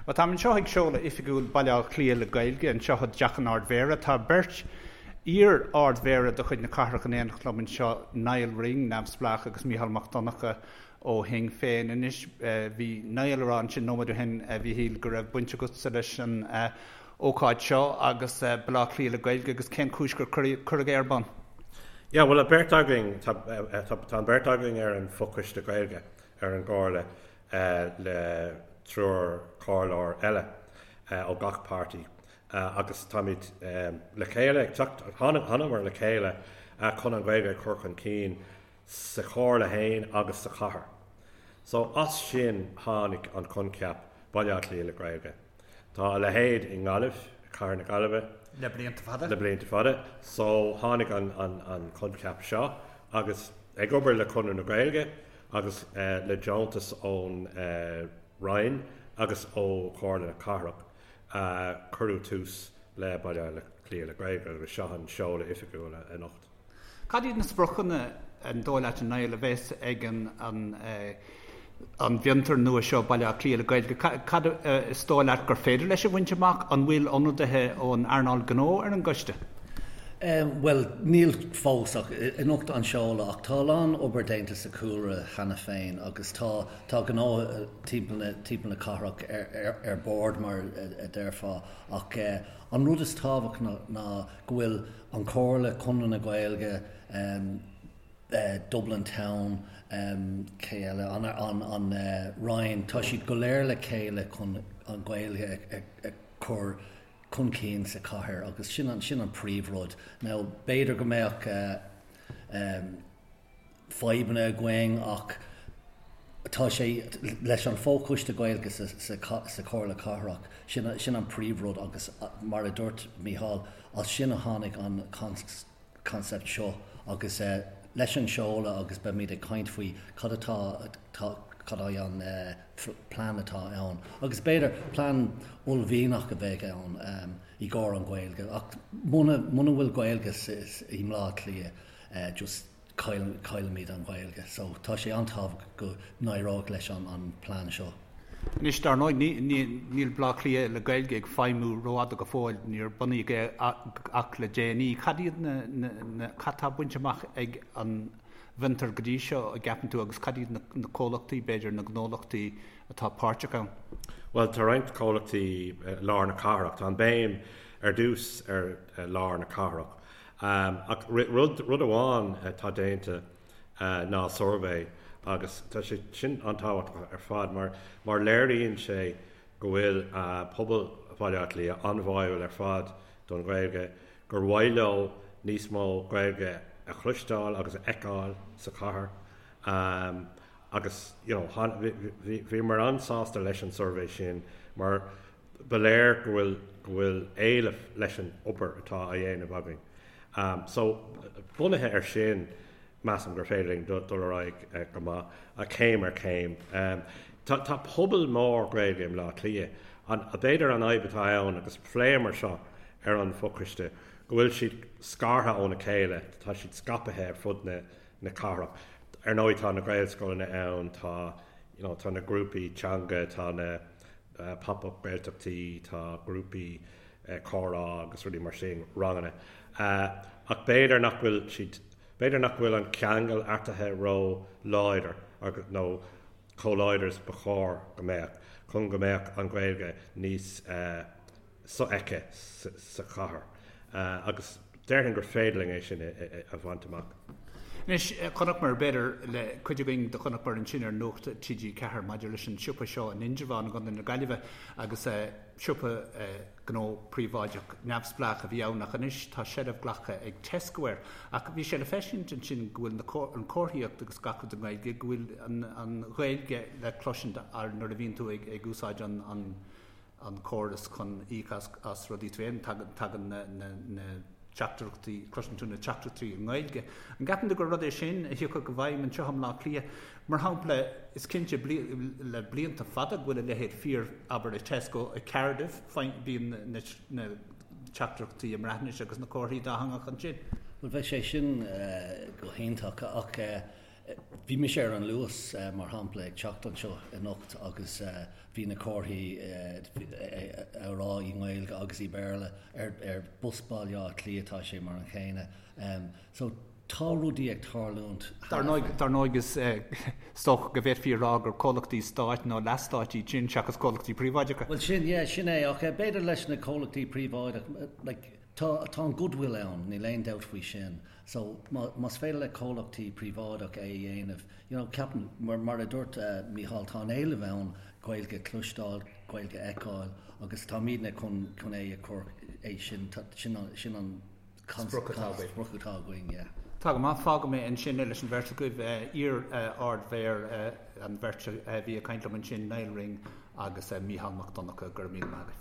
Bhuel, táim anseo ag seoladh oifigiúil Baile Átha Cliath le Gaeilge anseo i dTeach an Ard-Mhéara. Tá beirt iar-Ard-Mhéara de chuid na cathrach in éineacht liom anseo, Niall Ring, neamhspleách, agus Mícheál Mac Donncha ó Shinn Féin. Anois, bhí Niall ag rá ansin nóiméad ó shin, a Mhíchíl, go raibh baint agatsa leis an ócáid seo agus Baile Átha Cliath le Gaeilge agus cén chúis gur cuireadh é ar bun? Yeah, bhuel, an bheirt againn, tá an bheirt againn ar an bhfochoiste Gaeilge ar an gComhairle. le triúr comhairleoir eile ó gach páirtí agus táimid le chéile ag teacht, thángamar le chéile chun an Ghaeilge a chur chun cinn sa chomhairle féin agus sa chathair. So as sin tháinig an coincheap Baile Átha Cliath le Gaeilge. Tá a leithéid i nGaillimh, cathair na Gaillimhe. Le blianta fada. Le blianta fada. So tháinig an coincheap seo agus ag obair le Conradh na Gaeilge agus le deontas ón Roinn agus ó Chomhairle na Cathrach cuireadh tús le Baile Átha Cliath le Gaeilge agus seo an seoladh oifigiúil anocht. Cad iad na spriocanna, an dóigh leat, a Niall, a bheas ag an an bhfiontar nua seo, Baile Átha Cliath le Gaeilge? Cad is dóigh leat gur féidir leis a bhaint amach? An bhfuil ionadaithe ón earnáil gnó ar an gcoiste? Bhuel, níl fós ach anocht an seoladh ach tá a lán obair déanta sa chúlra cheana féin agus tá tá gnó timpeall na timpeall na cathrach ar ar ar bord mar a déarfá ach an rud is tábhachtach ná go bhfuil an Chomhairle, Conradh na Gaeilge, Dublin Town, cé eile, an an Roinn, tá siad go léir le chéile chun an Ghaeilge a chur chun cinn sa chathair agus sin an sin an príomhrud. Now b'fhéidir go mbeadh fadhbanna againn ach tá sé leis an fho-choiste Gaeilge sa sa Chomhairle Cathrach, sin sin an príomhrud agus mar a dúirt Mícheál, as sin a tháinig an concept seo agus leis an seoladh agus beimid ag caint faoi cad atá cad é an plean atá ann agus b'fhéidir plean uaillmhianach a bheidh ann i gcomhair an Ghaeilge ach muna muna bhfuil Gaeilge i mBleá Cliath just caillfimid an Ghaeilge so tá sé an-tábhachtach go n-éireoidh leis an plean seo. Anois, dar ndóigh, níl Baile Átha Cliath le Gaeilge ag feidhmiú rófhada go fóill, níor bunaíodh é ach le déanaí. Cad iad na, cad tá bainte amach ag an bhfiontar go dtí seo, a gceapann tú, agus cad iad na comhlachtaí, b'fhéidir, na gnólachtaí atá páirteach ann? Bhuel, tá roinnt comhlachtaí i lár na cathrach. Tá an béim ar dtús ar lár na cathrach. Ach rud, rud amháin atá déanta ná suirbhé agus tá sé sin an-tábhachtach ar fad mar, mar léiríonn sé go bhfuil pobal Bhaile Átha Cliath an-bháúil ar fad don Ghaeilge, gur mhaith leo níos mó Gaeilge a chloisteáil agus a fheiceáil sa chathair agus you know bhíomar an-sásta leis an suirbhé sin mar ba léir go bhfuil go bhfuil éileamh leis an obair atá á dhéanamh againn. So, bunaithe ar sin, measaim gur féidir linn dul ar aghaidh go maith, céim ar chéim. Tá tá pobal mór Gaeilge i mBleá Cliath. An b'fhéidir an fhadhb atá ann, agus phléamar seo ar an bhfochoiste, go bhfuil siad scartha óna chéile, tá siad scaipthe ar fud na na cathrach. Ar ndóigh tá na Gaelscoileanna ann, tá you know tá na grúpaí teanga, tá na pop-up Gaeltachtaí, tá grúpaí comhrá agus rudaí mar sin, ranganna. Ach b'fhéidir nach bhfuil siad, b'fhéidir nach bhfuil an ceangal eatarthu ró-láidir nó chomh láidir is ba chóir go mbeadh chun go mbeadh an Ghaeilge níos sofheicthe sa chathair agus déarfainn gur féidir linn é sin a bhaint amach. Anois, chonaiceamar, b'fhéidir, le cuid againn do chonaiceamar ansin ar Nuacht TG4 maidir leis an siopa seo in Indreabhán i gContae na Gaillimhe agus siopa gnó príobháideach neamhspleách a bhí ann ach anois tá seilbh glactha ag Tesco air. Ach bhí sé le feiscint ansin go bhfuil na an comharthaíocht agus gach rud i nGaeilge, go bhfuil an an Ghaeilge le cloisint nuair a bhíonn tú ag ag úsáid an an an córas chun íoc as rudaí tú féin, tagann na teachtaireachtaí, cloiseann tú na teachtaireachtaí i nGaeilge. An gceapann tú gur rud é sin a thiocfadh i bhfeidhm anseo i mBleá Cliath? Mar shampla, is cinnte le blianta fada go bhfuil a leithéid fíor, abair, i Tesco i Cardiff, bíonn na teachtaireachtaí i mBreatnais agus na comharthaí dátheangach ansin. Bhuel, bheadh sé sin go hiontach ach. Bhí mise ar an Luas, mar shampla, ag teacht anseo anocht agus bhí na comharthaí á rá i nGaeilge agus i Béarla. Ar bus Baile Átha Cliath tá sé mar an chéanna. So tá rudaí ag tarlúint. Dar ndóigh, dar ndóigh is dócha go bhféadfaí a rá gur comhlachtaí stáit nó leathstáit iad sin seachas comhlachtaí príobháideacha. Bhuel sin, yeah, sin é. Ach b'fhéidir leis na comhlachtaí príobháideacha, like, Tá, tá an goodwill ann, níl aon dabht faoi sin. So, má, más féidir le comhlachtaí príobháideach é a dhéanamh, you know, ceapaim, mar, mar a dúirt Mícheál, tá an éileamh ann Gaeilge a chloisteáil, Gaeilge a fheiceáil agus táimidne chun, chun é a chur, é sin, sin an, sin an Sprioc atá againn. Sprioc atá againn, yeah. Tá go maith, fágfaidh mé ansin é leis an bheirt agaibh, iar-Ard-Mhéara, an bheirt a bhí ag caint liom ansin, Nial Ring agus Mícheál Mac Donncha, go raibh míle maith agaibh.